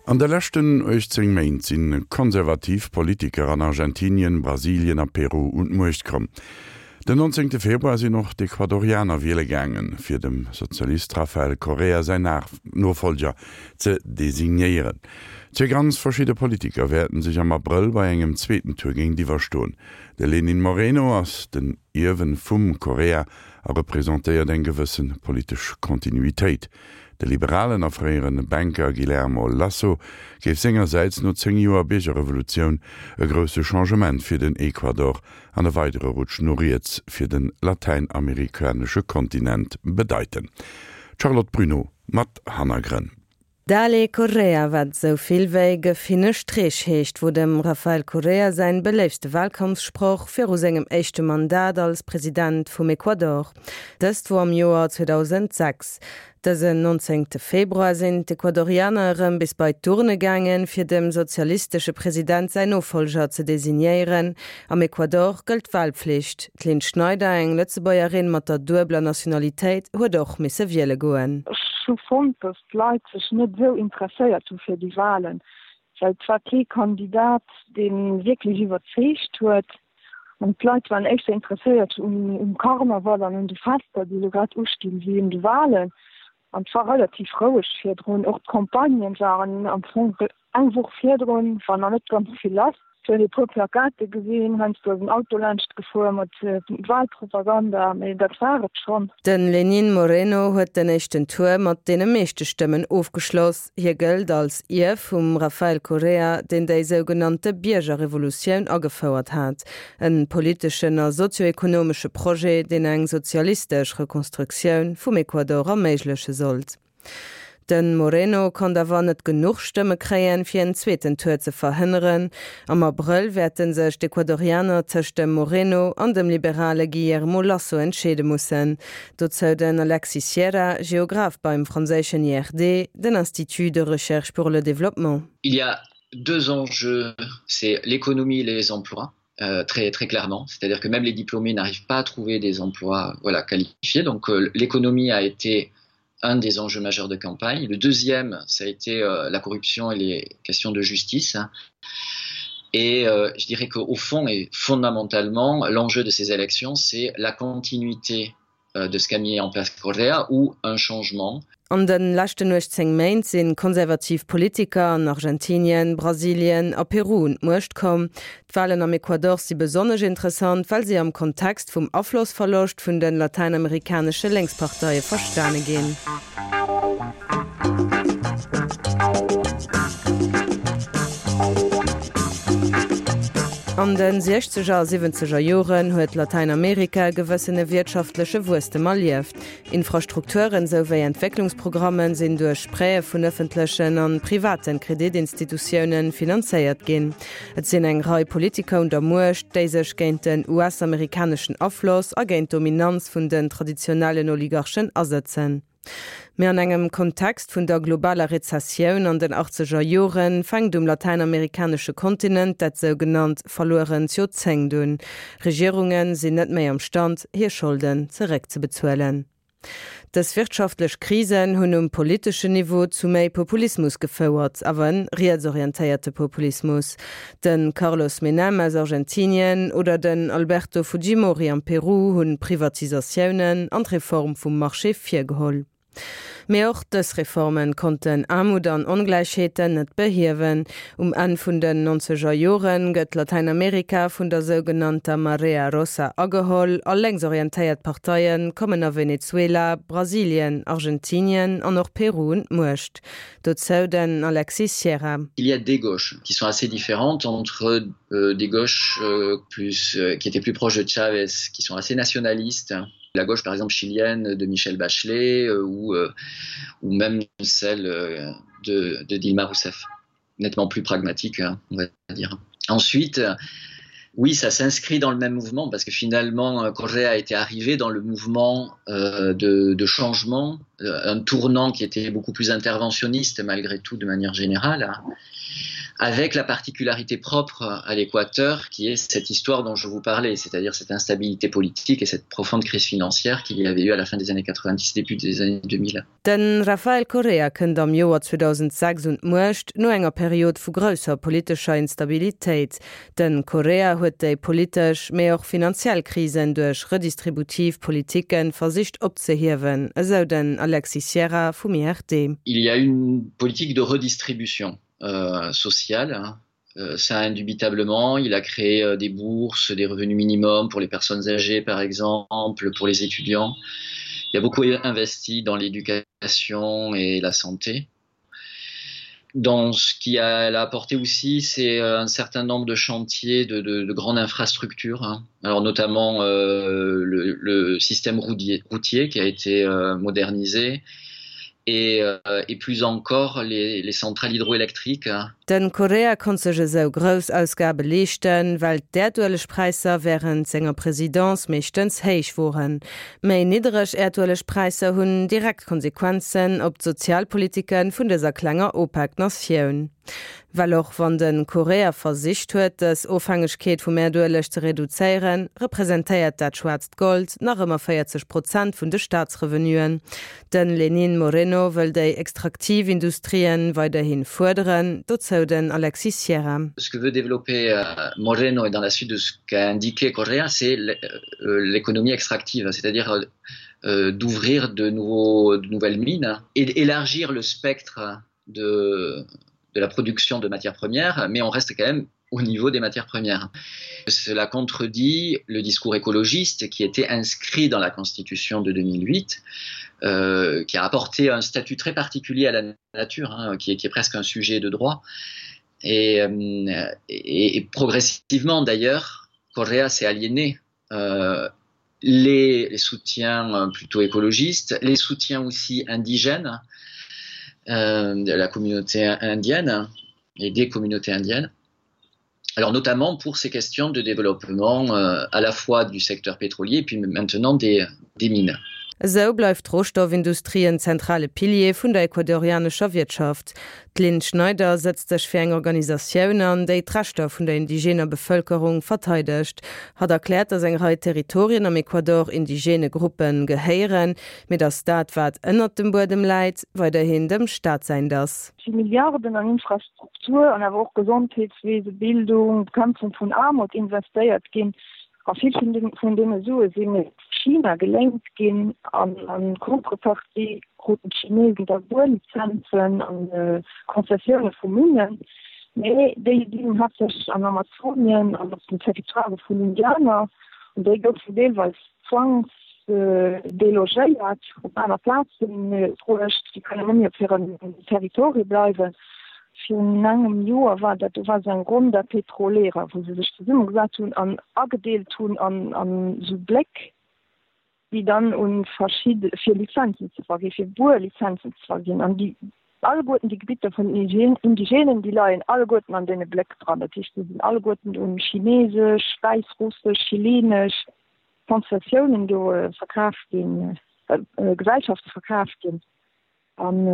An de leschten 18 Méint si konservativ Politiker an Argentinien, Brasilien a Peru un d'Muecht komm. Den 19 Februar sinn och d'Ecuadorianer wiele gaangen, fir dem Sozialist Rafael Correa säin Nofollger ze designéieren. Zwee ganz verschidde Politiker wäerten sech am Abrëll bei engem zweeten Tour géintiwwer stoen. De Lenin Moreno ass den Ierwen vum Correa a representéiert eng gewësse politesch Kontinuitéit. De liberalen a fréiere Banker Guillermo Lasso géif sengersäits no 10 Joer Biergerrevolutioun e grousse Changement fir den Ecuador an e weidere Rutsch no riets fir de latäinamerikanesche Kontinent bedeiten. D'Charlotte Bruneau mat Hannergrënn. Dale Correa, wat esou vill wéi Gëff hinne Streech heescht, wor dem Rafael Correa säin beléiftste Wahlkampfsproch viru sengem éischte Mandat als President vum Ecuador. Dëst wor am Joer 2006. Dësen 19 Februar sinn d'Ecuadorianer erëm bis bei d'Urne gaangen, fir dem sozialistesche President säin Nofollger ze designéieren. Am Ecuador gëllt d'Wahlpflicht. D'Lynn Schneider, eng Lëtzebuergerin mat der duebeler Nationalitéit, huet och misse wiele goen. Ech hu fonnt, datt d'Leit sech net esou interesséiert hu fir déi Wahlen, well et war kee Kandidat, dee wierklech iwwerzeegt huet. An d'Leit waren éischter interesséiert um Karneval an un de Fester, déi elo grad ustinn, wéi un de Wahlen. An et war relativ roueg virdrun. Och d'Campagnen waren am Fong eng Woch virdrun, war nach net ganz vill lass. Et huet ee puer Plakate gesinn, heiansdo ass en Auto laanscht gefuer mat Wahlpropaganda, mee dat war et schonn. De Lenín Moreno huet den éischten Tour mat deene meeschte Stëmmen ofgeschloss. Hie gëllt als Ierf vum Rafael Correa, deen déi sougenannte Biergerrevolutioun agefouert hat, en politeschen a sozioekonomesche Projet, deen eng sozialistesch Rekonstruktioun vum Ecuador erméigleche sollt. De Moreno konnt awer net genuch Stëmme kréien, fir en zweeten Tour ze verhënneren. Am Abrëll wäerte sech d'Ecuadorianer tëscht dem Moreno an dem liberale Guillermo Lasso entscheede mussen. Dozou den Alexis Sierra, Geograph beim franséischen IRD, den Institut de recherche pour le développement. Il y a deux enjeux, c'est l'économie et les emplois. Euh, très très clairement c'est à dire que même les diplômés n'arrivent pas à trouver des emplois voilà qualifiés donc euh, l'économie a été un des enjeux majeurs de campagne le deuxième ça a été euh, la corruption et les questions de justice et euh, je dirais qu'au fond et fondamentalement l'enjeu de ces élections c'est la continuité euh, de ce qu'a mis en place Correa ou un changement. An de leschten 18 Méint si konservativ Politiker an Argentinien, Brasilien a Peru un d'Muecht komm. D'Walen am Ecuador si besonnesch interessant, well si am Kontext vum Aflossverloscht vun de latäinamerikanesche Lénksparteie verstane ginn. An de siechzeger a siwwenzeger Joren huet Latäinamerika e gewëssene wiertschaftleche Wuesstem erlieft. Infrastrukturen sou wéi Entwécklungsprogrammen sinn duerch Prêtë vun ëffentlechen an privaten Kreditinstitutiounen finanzéiert ginn. Et sinn eng Rei Politiker un der Muecht, déi sech géint den US-amerikaneschen Afloss a géint d'Dominanz vun den traditionellen Oligarchen asëtzen. Mee an engem Kontext vun der globaler Rezessioun an den achtzeger Joren fänkt um latäinamerikanesche Kontinent dat sougenannt verluerent Joerzéngt un. Regierunge sinn net méi am Stand, hir Scholden zeréckzebezuelen. Dës wirtschaftlech Krisen hunn um politeschen Niveau zu méi Populismus gefouert, awer en rietsorientéierte Populismus. De Carlos Menem aus Argentinien oder den Alberto Fujimori am Peru hunn Privatisatiounen an d'Reform vum Marché virgeholl. Mee och dës Reformen konnten Aarmut an Ongläichheeten net behiewen. Um Enn vun den nonzeger Joren gëtt Latäinamerika vun der sougenannter Marea Rosa ageholl a lénksorientéiert Parteie kommen a Venezuela, Brasilien, Argentinien an och Peru un d'Muecht. Dozou den Alexis Sierra. Il y a des gauches qui sont assez différentes entre euh, des gauches euh, plus euh, qui étaient plus proches de Chavez, qui sont assez nationalistes, la gauche par exemple chilienne de Michel Bachelet euh, ou, euh, ou même celle euh, de, de Dilma Rousseff, nettement plus pragmatique hein, on va dire. Ensuite, oui, ça s'inscrit dans le même mouvement parce que finalement euh, Correa a été arrivé dans le mouvement euh, de, de changement, euh, un tournant qui était beaucoup plus interventionniste malgré tout de manière générale. Avec la particularité propre à l'Équateur qui est cette histoire dont je vous parlais, c'est-à-dire cette instabilité politique et cette profonde crise financière qu'il y avait eu à la fin des années 90 début des années 2000. De Rafael Correa kënnt am Joer 2006 un d'Muecht, no enger Period vu grousser politescher Instabilitéit. De Correa huet déi politesch, mee och finanziell Krisen duerch redistributiv Politike versicht opzehiewen, esou den Alexis Sierra vum IRD. Il y a une politique de redistribution sociale, ça indubitablement. Il a créé des bourses, des revenus minimums pour les personnes âgées par exemple, pour les étudiants. Il a beaucoup investi dans l'éducation et la santé. Dans ce qui a, a apporté aussi, c'est un certain nombre de chantiers de, de, de grandes infrastructures, hein. alors notamment euh, le, le système routier, routier qui a été euh, modernisé et, euh, et plus encore les, les centrales hydroélectriques. Den Correa konnt sech esou grouss Ausgabe leeschten, well d'Äerduelegpräisser wärend senger Presidence meeschtens héich woren. Méi niddereg Äerduelegpräisser hunn direkt Konsequenzen op d'Sozialpolitike vun dëser klenger OPEC-Natioun. Well och wann de Correa versicht huet, dës Ofhängegkeet vum Äerdueleg ze reduzéieren, representéiert dat schwaarzt Gold nach ëmmer 40 Prozent vun de Staatsrevenuen. De Lenín Moreno wëll déi extraktiv Industrien weiderhi fuerderen, dozou den Alexis Sierra. Ce que veut développer Moreno et dans la suite de ce qu'a indiqué Correa, c'est l'économie extractive, c'est-à-dire d'ouvrir de nouveaux, de nouvelles mines et élargir le spectre de, de la production de matières premières, mais on reste quand même au niveau des matières premières. Cela contredit le discours écologiste qui était inscrit dans la constitution de 2008, euh, qui a apporté un statut très particulier à la nature, hein, qui, est, qui est presque un sujet de droit. Et, euh, et, et progressivement d'ailleurs, Correa s'est aliéné euh, les, les soutiens euh, plutôt écologistes, les soutiens aussi indigènes euh, de la communauté indienne et des communautés indiennes. Alors notamment pour ces questions de développement euh, à la fois du secteur pétrolier et puis maintenant des, des mines. Esou bleift d'Rohstoffindustrie en zentrale Pilier vun der ecuadorianescher Wirtschaft. D'Lynn Schneider sëtzt sech fir eng Organisatioun an, déi d'Rechter vun der indigener Bevëlkerung verteidegt. Hatt erkläert, datt eng Rei Territorien am Ecuador indigene Gruppe gehéieren, mee datt dat, wat ënnert dem Buedem läit, weiderhin dem Staat säint ass. Si Milliarden an Infrastruktur an awer och Gesondheetswese, Bildung, Bekämpfung vun Aarmut investéiert ginn. A vill vun deene Sue sinn China geléint ginn an a Contrepartie kruten d'Chinesen da Buerlizenzen a Konzessioune vu Minnen. Mee déi sinn haaptsächlech an Amazonien an op den Territoire vun Indianer an déi goufen deelweis zwangsdelogéiert, op aner Plaze bruecht. Déi kënnen net méi op hirem Territoire bleiwen. Virun engem Joer war dat, do war esou eng Ronda Petrolera, wou se sech zesummegesat hunn an agedeelt hunn an esou Bléck, déi dann u verschidde, fir Lizenzen ze verginn, fir Buerlizenzen ze verginn. An déi alleguerten déi Gebitter vun den Indigenen, déi leien alleguerten an deene Bléck dran. Dat heescht, déi sinn alleguerten u chinesesch, wäissrussesch, chilenesch Konzessiounen do verkaf ginn, Gesellschafte verkaf ginn. An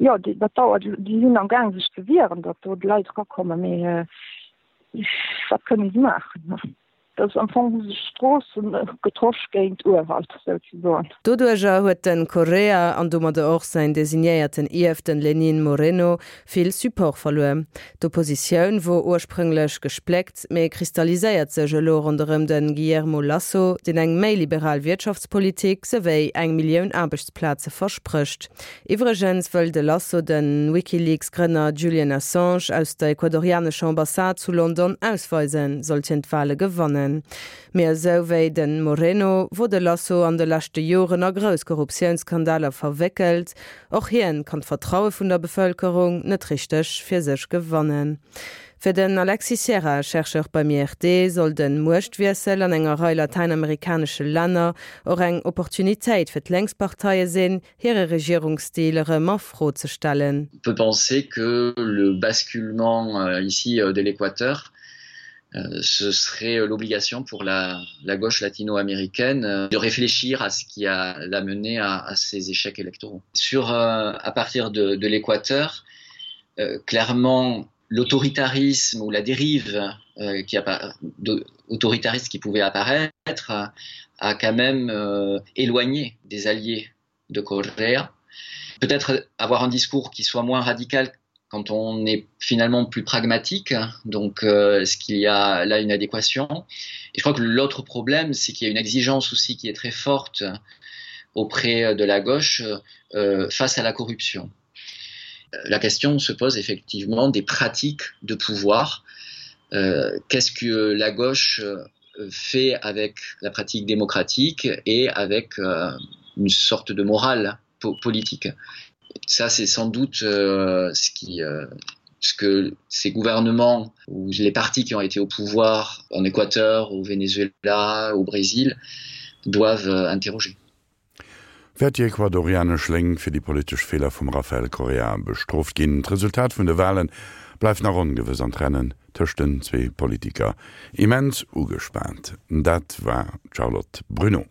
jo, dat dauert, déi sinn am Gaang sech ze wieren, datt do d'Leit erakommen, mee wat kënne se maachen? Dat ass am Fong hu sech Stroossen getosch géint Urwald souzesoen. Doduerjer huet de Correa, an domadder och säin designéierten Ierf, den Lenín Moreno, vill Support verluer. D'Oppositioun wor ursprünglech gespléckt, mee kristalliséiert sech elo ronderëm de Guillermo Lasso, deen eng méi liberal Wirtschaftspolitik souwéi eng Millioun Aarbechtsplaze versprécht. Iwwregens wëll de Lasso de WikiLeaks-Grënner Julian Assange aus der ecuadorianescher Ambassade zu London ausweisen, sollt hien d'Wale gewannen. Mee esou wéi de Moreno wor de Lasso an de leschte Joren a grouss Korruptiounsskandaler verwéckelt. Och hien kann d'Vertraue vun der Bevëlkerung net richteg fir sech gewannen. Fir den Alexis Sierra, Chercheur beim IRD, soll de Muechtwiessel an enger Rei latäinamerikanesche Länner och eng Opportunitéit fir d'Lénksparteie sinn, hire Regierungsstil erëm a Fro ze stellen. On peut penser que le basculement ici de l'Équateur ce serait l'obligation pour la, la gauche latino-américaine de réfléchir à ce qui a l'a mené à, à ces échecs électoraux. Sur, à partir de, de l'Équateur, Euh, clairement, l'autoritarisme ou la dérive euh, qui a, de, autoritariste qui pouvait apparaître a quand même euh, éloigné des alliés de Correa. Peut-être avoir un discours qui soit moins radical quand on est finalement plus pragmatique, donc euh, est-ce qu'il y a là une adéquation Et je crois que l'autre problème, c'est qu'il y a une exigence aussi qui est très forte auprès de la gauche euh, face à la corruption. La question se pose effectivement des pratiques de pouvoir. Euh, Qu'est-ce que la gauche euh, fait avec la pratique démocratique et avec euh, une sorte de morale po politique Ça, c'est sans doute euh, ce qui euh, ce que ces gouvernements ou les partis qui ont été au pouvoir en Équateur, au Venezuela, au Brésil doivent euh, interroger. Wäert déi ecuadorianesch Lénk fir déi politesch Feeler vum Rafael Correa bestrooft ginn? D'Resultat vun de Wale bleift nach ongewëss an d'Rennen tëscht den zwee Politiker immens ugespaant. Dat war d'Charlotte Bruneau.